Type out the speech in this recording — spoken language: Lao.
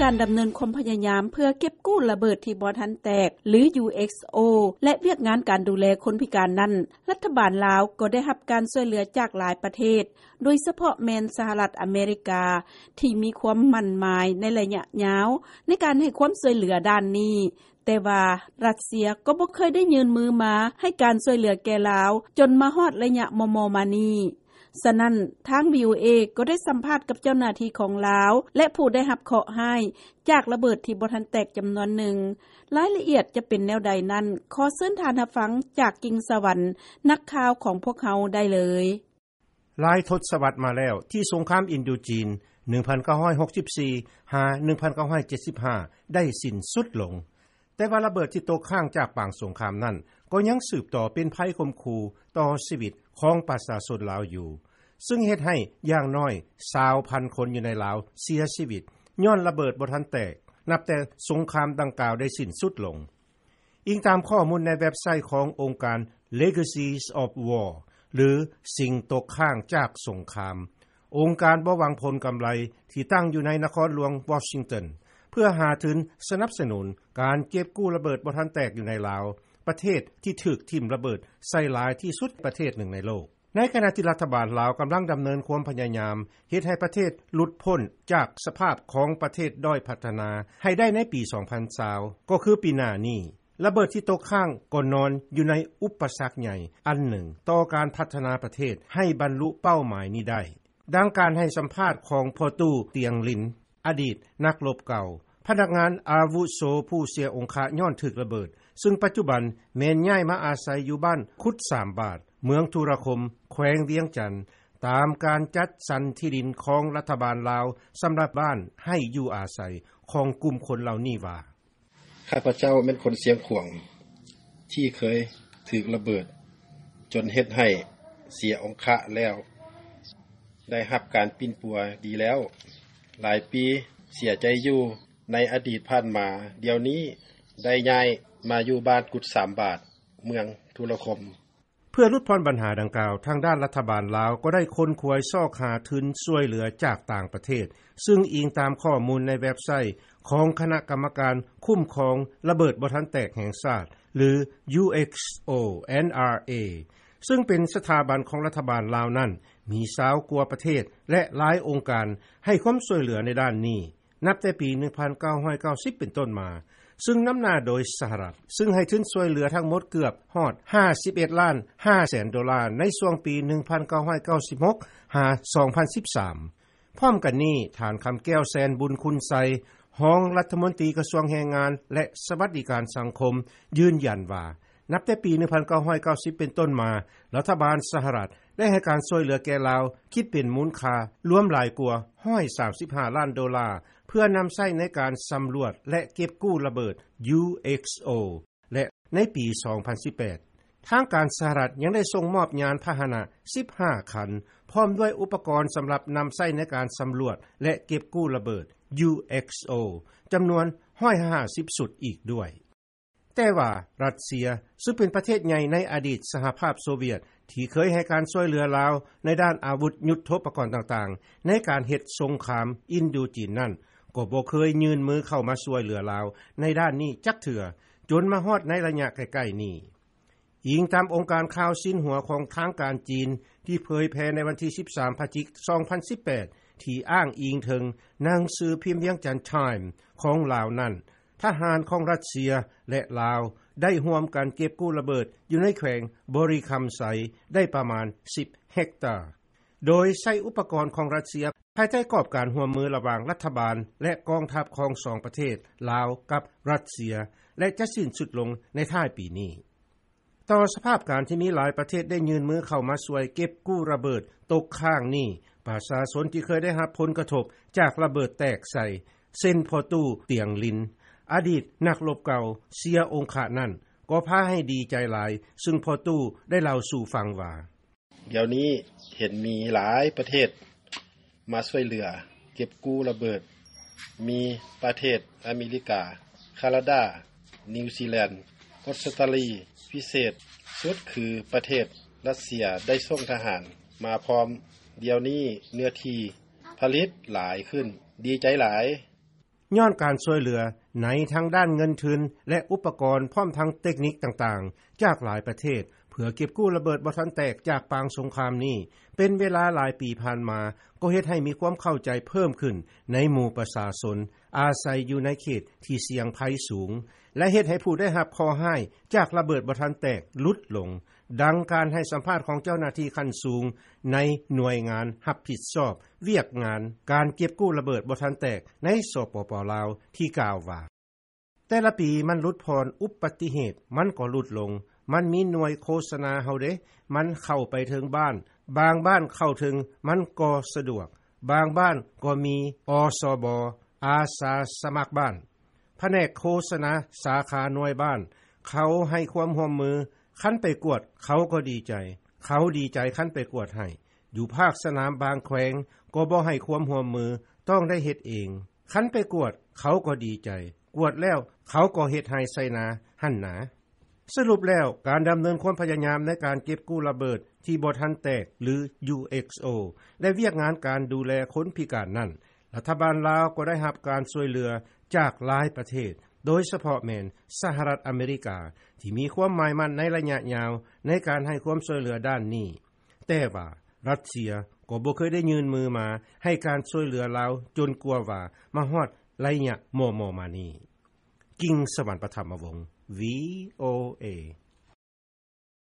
ການດຳເນີນຄວາມພະຍາຍາມ ເພື່ອເກັບກູ້ລະເບີດທີ່ບໍ່ທັນແຕກ ຫຼື ຢູເອັກໂອ ແລະ ວຽກງານການດູແລຄົນພິການນັ້ນ, ລັດຖະບານລາວກໍໄດ້ຮັບການຊ່ວຍເຫຼືອຈາກຫຼາຍປະເທດ, ໂດຍສະເພາະແມ່ນສະຫະລັດອາເມລິກາ ທີ່ມີຄວາມໝັ້ນໝາຍໃນໄລຍະຍາວ ໃນການໃຫ້ຄວາມຊ່ວຍເຫຼືອດ້ານນີ້, ແຕ່ວ່າຣັດເຊຍກໍບໍ່ເຄີຍໄດ້ຍື່ນມືມາໃຫ້ການຊ່ວຍເຫຼືອແກ່ລາວ ຈົນມາຮອດໄລຍະມໍ່ໆມານີ້. ສະນັ້ນ, ທາງ ວີໂອເອ ກໍໄດ້ສຳພາດກັບເຈົ້າໜ້າທີ່ຂອງລາວ ແລະ ຜູ້ໄດ້ຮັບເຄາະຮ້າຍຈາກລະເບີດທີ່ບໍ່ທັນແຕກຈຳນວນໜຶ່ງ. ລາຍລະອຽດຈະເປັນແນວໃດນັ້ນ, ຂໍເຊີນທ່ານຮັບຟັງຈາກກິ່ງສະຫວັນ, ນັກຂ່າວຂອງພວກເຮົາໄດ້ເລີຍ. ຫຼາຍທົດສະວັດມາແລ້ວ ທີ່ສົງຄາມອິນໂດຈີນ ໜຶ່ງພັນເກົ້າຮ້ອຍຫົກສິບສີ່ ຫາ ໜຶ່ງພັນເກົ້າຮ້ອຍເຈັດສິບຫ້າ ໄດ້ສິ້ນສຸດລົງ, ແຕ່ວ່າລະເບີດທີ່ຕົກຄ້າງຈາກປາງສົງຄາມນັ້ນ ກໍຍັງສືບຕໍ່ເປັນໄພຂົ່ມຂູ່ຕໍ່ຊີວິດຂອງປະຊາຊົນລາວຢູ່, ຊຶ່ງເຮັດໃຫ້ຢ່າງໜ້ອຍຊາວພັນຄົນຢູ່ໃນລາວເສຍຊີວິດ ຍ້ອນລະເບີດບໍ່ທັນແຕກ ນັບແຕ່ສົງຄາມດັ່ງກ່າວໄດ້ສິ້ນສຸດລົງ. ອີງຕາມຂໍ້ມູນໃນເວັບໄຊຂອງອົງການ Legacies of War ຫຼື ສິ່ງຕົກຄ້າງຈາກສົງຄາມ, ອົງການບໍ່ຫວັງຜົນກຳໄລທີ່ຕັ້ງຢູ່ໃນນະຄອນຫຼວງວໍຊິງຕັນ ເພື່ອຫາທຶນສະໜັບສະໜູນການເກັບກູ້ລະເບີດບໍ່ທັນແຕກຢູ່ໃນລາວ, ປະເທດທີ່ຖືກຖິ້ມລະເບີດໃສ່ຫຼາຍທີ່ສຸດປະເທດໜຶ່ງໃນໂລກ. ໃນຂະນະທີ່ລັດຖະບານລາວກຳລັງດຳເນີນຄວາມພະຍາຍາມເຮັດໃຫ້ປະເທດຫຼຸດພົ້ນຈາກສະພາບຂອງປະເທດດ້ອຍພັດທະນາໃຫ້ໄດ້ໃນປີສອງພັນຊາວ ກໍຄືປີໜ້ານີ້, ລະເບີດທີ່ຕົກຄ້າງກໍນອນຢູ່ໃນອຸປະສັກໃຫຍ່ອັນໜຶ່ງຕໍ່ການພັດທະນາປະເທດໃຫ້ບັນລຸເປົ້າໝາຍນີ້ໄດ້. ດັ່ງການໃຫ້ສຳພາດຂອງພໍ່ຕູ້ ຕຽງລິນ ອະດີດນັກລົບເກົ່າ, ພະນັກງານອາວຸໂສຜູ້ເສຍອົງຄະຍ້ອນຖືກລະເບີດ, ຊຶ່ງປັດຈຸບັນແມ່ນຍ້າຍມາອາໄສຢູ່ບ້ານກຸດສາມບາດ, ເມືອງທຸລະຄົມ, ແຂວງວຽງຈັນ, ຕາມການຈັດສັນທີ່ດິນຂອງລັດຖະບານລາວສຳລັບບ້ານໃຫ້ຢູ່ອາໄສຂອງກຸ່ມຄົນເຫຼົ່ານີ້ວ່າ. ຂ້າພະເຈົ້າແມ່ນຄົນຊຽງຂວາງ ທີ່ເຄີຍຖືກລະເບີດຈົນເຮັດໃຫ້ເສຍອົງຄະແລ້ວ ໄດ້ຮັບການປິ່ນປົວດີແລ້ວຫຼາຍປີ, ເສຍໃຈຢູ່ໃນອະດີດຜ່ານມາ, ດຽວນີ້ໄດ້ຍ້າຍມາຢູ່ບ້ານກຸດສາມບາດ, ເມືອງທຸລະຄົມ. ເພື່ອຫຼຸດຜ່ອນບັນຫາດັ່ງກ່າວ, ທາງດ້ານລັດຖະບານລາວກໍໄດ້ຂົນຂວາຍຊອກຫາທຶນຊ່ວຍເຫຼືອຈາກຕ່າງປະເທດ, ຊຶ່ງອີງຕາມຂໍ້ມູນໃນເວັບໄຊຂອງຄະນະກຳມະການຄຸ້ມຄອງລະເບີດບໍ່ທັນແຕກແຫ່ງຊາດ ຫຼື UXO NRA, ຊຶ່ງເປັນສະຖາບັນຂອງລັດຖະບານລາວນັ້ນ, ມີຊາວກວ່າປະເທດ ແລະ ຫຼາຍອົງການໃຫ້ຄວາມຊ່ວຍເຫຼືອໃນດ້ານນີ້. ນັບແຕ່ປີໜຶ່ງພັນເກົ້າຮ້ອຍເກົ້າສິບເປັນຕົ້ນມາ, ຊຶ່ງນຳໜ້າໂດຍສະຫະລັດ, ຊຶ່ງໃຫ້ທຶນຊ່ວຍເຫຼືອທັງໝົດເກືອບຮອດຫ້າສິບເອັດລ້ານຫ້າແສນໂດລາ ໃນຊ່ວງປີໜຶ່ງພັນເກົ້າຮ້ອຍເກົ້າສິບຫົກ ຫາ ສອງພັນສິບສາມ. ພ້ອມກັນນີ້, ທ່ານ ຄຳແກ້ວ ແສນບຸນຄຸນໄຊ, ຮອງລັດຖະມົນຕີກະຊວງແຮງງານ ແລະ ສະຫວັດດີການສັງຄົມ ຢືນຢັນວ່າ, ນັບແຕ່ປີໜຶ່ງພັນເກົ້າຮ້ອຍເກົ້າສິບເປັນຕົ້ນມາ, ລັດຖະບານສະຫະລັດໄດ້ໃຫ້ການຊ່ວຍເຫຼືອແກ່ລາວ ຄິດເປັນມູນຄ່າລວມຫຼາຍກວ່າຮ້ອຍສາມສິບຫ້າລ້ານໂດລາ ເພື່ອນຳໃຊ້ໃນການສຳຫຼວດ ແລະ ເກັບກູ້ລະເບີດ UXO ແລະ ໃນປີສອງພັນສິບແປດ, ທາງການສະຫະລັດຍັງໄດ້ສົ່ງມອບຍານພາຫະນະສິບຫ້າຄັນ ພ້ອມດ້ວຍອຸປະກອນສຳລັບນຳໃຊ້ໃນການສຳຫຼວດ ແລະ ເກັບກູ້ລະເບີດ UXO ຈຳນວນຮ້ອຍຫ້າສິບຊຸດອີກດ້ວຍ. ແຕ່ວ່າຣັດເຊຍ, ຊຶ່ງເປັນປະເທດໃຫຍ່ໃນອະດີດສະຫະພາບໂຊວຽດ ທີ່ເຄີຍໃຫ້ການຊ່ວຍເຫຼືອລາວໃນດ້ານອາວຸດຍຸດໂທປະກອນຕ່າງໆ ໃນການເຮັດສົງຄາມອິນໂດຈີນນັ້ນ, ກໍບໍ່ເຄີຍຍື່ນມືເຂົ້າມາຊ່ວຍເຫຼືອລາວໃນດ້ານນີ້ຈັກເທື່ອ, ຈົນມາຮອດໃນໄລຍະໃກ້ໆນີ້. ອີງຕາມອົງການຂ່າວຊິນຫົວຂອງທາງການຈີນ ທີ່ເຜີຍແຜ່ໃນວັນທີສິບສາມ ພະຈິກ ສອງພັນສິບແປດ ທີ່ອ້າງອີງເຖິງໜັງສືພິມວຽງຈັນ Time ຂອງລາວນັ້ນ, ທະຫານຂອງຣັດເຊຍ ແລະ ລາວ ໄດ້ຮ່ວມກັນເກັບກູ້ລະເບີດຢູ່ໃນແຂວງບໍລິຄຳໄຊ ໄດ້ປະມານສິບເຮັກຕາ, ໂດຍໃຊ້ອຸປະກອນຂອງຣັດເຊຍ ພາຍໃຕ້ກອບການຮ່ວມມືລະຫວ່າງລັດຖະບານ ແລະ ກອງທັບຂອງສອງປະເທດ ລາວ ກັບຣັດເຊຍ ແລະ ຈະສິ້ນສຸດລົງໃນທ້າຍປີນີ້. ຕໍ່ສະພາບການທີ່ມີຫຼາຍປະເທດໄດ້ຍື່ນມືເຂົ້າມາຊ່ວຍເກັບກູ້ລະເບີດຕົກຄ້າງນີ້, ປະຊາຊົນທີ່ເຄີຍໄດ້ຮັບຜົນກະທົບຈາກລະເບີດແຕກໃສ່ ເຊັ່ນ ພໍ່ຕູ້ ຕຽງລິນ, ອະດີດນັກລົບເກົ່າ ເສຍອົງຄະນັ້ນ ກໍພາໃຫ້ດີໃຈຫຼາຍ, ຊຶ່ງພໍ່ຕູ້ໄດ້ເລົ່າສູ່ຟັງວ່າ, ດຽວນີ້ເຫັນມີຫຼາຍປະເທດມາຊ່ວຍເຫຼືອເກັບກູ້ລະເບີດ, ມີປະເທດອາເມລິກາ, ຄານາດາ, ນິວຊີແລນ, ອົດສະຕາລີ, ພິເສດສຸດຄືປະເທດຣັດເຊຍໄດ້ສົ່ງທະຫານມາພ້ອມ, ດຽວນີ້ເນື້ອທີ່ຜະລິດຫຼາຍຂຶ້ນ, ດີໃຈຫຼາຍ. ຍ້ອນການຊ່ວຍເຫຼືອ ໃນທັງດ້ານເງິນທຶນ ແລະ ອຸປະກອນ ພ້ອມທັງເຕັກນິກຕ່າງໆ ຈາກຫຼາຍປະເທດ ເພື່ອເກັບກູ້ລະເບີດບໍ່ທັນແຕກ ຈາກປາງສົງຄາມນີ້ ເປັນເວລາຫຼາຍປີຜ່ານມາ ກໍເຮັດໃຫ້ມີຄວາມເຂົ້າໃຈເພີ່ມຂຶ້ນ ໃນໝູ່ປະຊາຊົນ ອາໄສຢູ່ໃນເຂດທີ່ສ່ຽງໄພສູງ ແລະ ເຮັດໃຫ້ຜູ້ໄດ້ຮັບເຄາະຮ້າຍ ຈາກລະເບີດບໍ່ທັນແຕກ ຫຼຸດລົງ. ດັ່ງການໃຫ້ສຳພາດ ຂອງເຈົ້າໜ້າທີ່ຂັ້ນສູງ ໃນໜ່ວຍງານຮັບຜິດຊອບ ວຽກງານການເກັບກູ້ລະເບີດບໍ່ທັນແຕກ ໃນ ສປປ ລາວ ທີ່ກ່າວວ່າ: ແຕ່ລະປີມັນຫຼຸດຜ່ອນ ອຸປັດຕິເຫດມັນກໍຫຼຸດລົງ ມັນມີໜ່ວຍໂຄສະນາເຮົາເດ້ ມັນເຂົ້າໄປເຖິງບ້ານ ບາງບ້ານເຂົ້າເຖິງ ມັນກໍສະດວກ ບາງບ້ານກໍມີ ອສບ ອາສາສະໝັກບ້ານ ພະແນກໂຄສະນາ ສາຂາໜ່ວຍບ້ານ ເຂົາໃຫ້ຄວາມຮ່ວມມື ຄັນໄປກວດ ເຂົາກໍດີໃຈ ເຂົາດີໃຈຄັນໄປກວດໃຫ້ ຢູ່ພາກສະໜາມບາງແຂວງ ກໍບໍ່ໃຫ້ຄວາມຮ່ວມມື ຕ້ອງໄດ້ເຮັດເອງ ຄັນໄປກວດ ເຂົາກໍດີໃຈ ກວດແລ້ວ ເຂົາກໍເຮັດໄຮ່ໃສ່ນາຫັ້ນນາ. ສະຫຼຸບແລ້ວ ການດຳເນີນຄວາມພະຍາຍາມ ໃນການເກັບກູ້ລະເບີດ ທີ່ບໍ່ທັນແຕກ ຫຼື UXO ແລະ ວຽກງານການດູແລຄົນພິການນັ້ນ ລັດຖະບານລາວ ກໍໄດ້ຮັບການຊ່ວຍເຫຼືອ ຈາກຫຼາຍປະເທດ ໂດຍສະເພາະແມ່ນ ສະຫະລັດອາເມລິກາ ທີ່ມີຄວາມໝາຍໝັ້ນ ໃນໄລຍະຍາວ ໃນການໃຫ້ຄວາມຊ່ວຍເຫຼືອດ້ານນີ້ ແຕ່ວ່າ ຣັດເຊຍ ກໍບໍ່ເຄີຍໄດ້ຍື່ນມືມາ ໃຫ້ການຊ່ວຍເຫຼືອລາວ ຈົນກວ່າວ່າ ມາຮອດໄລຍະມໍ່ໆມານີ້. ກິງສະຫວັນ ປະຖຳມະວົງ VOA.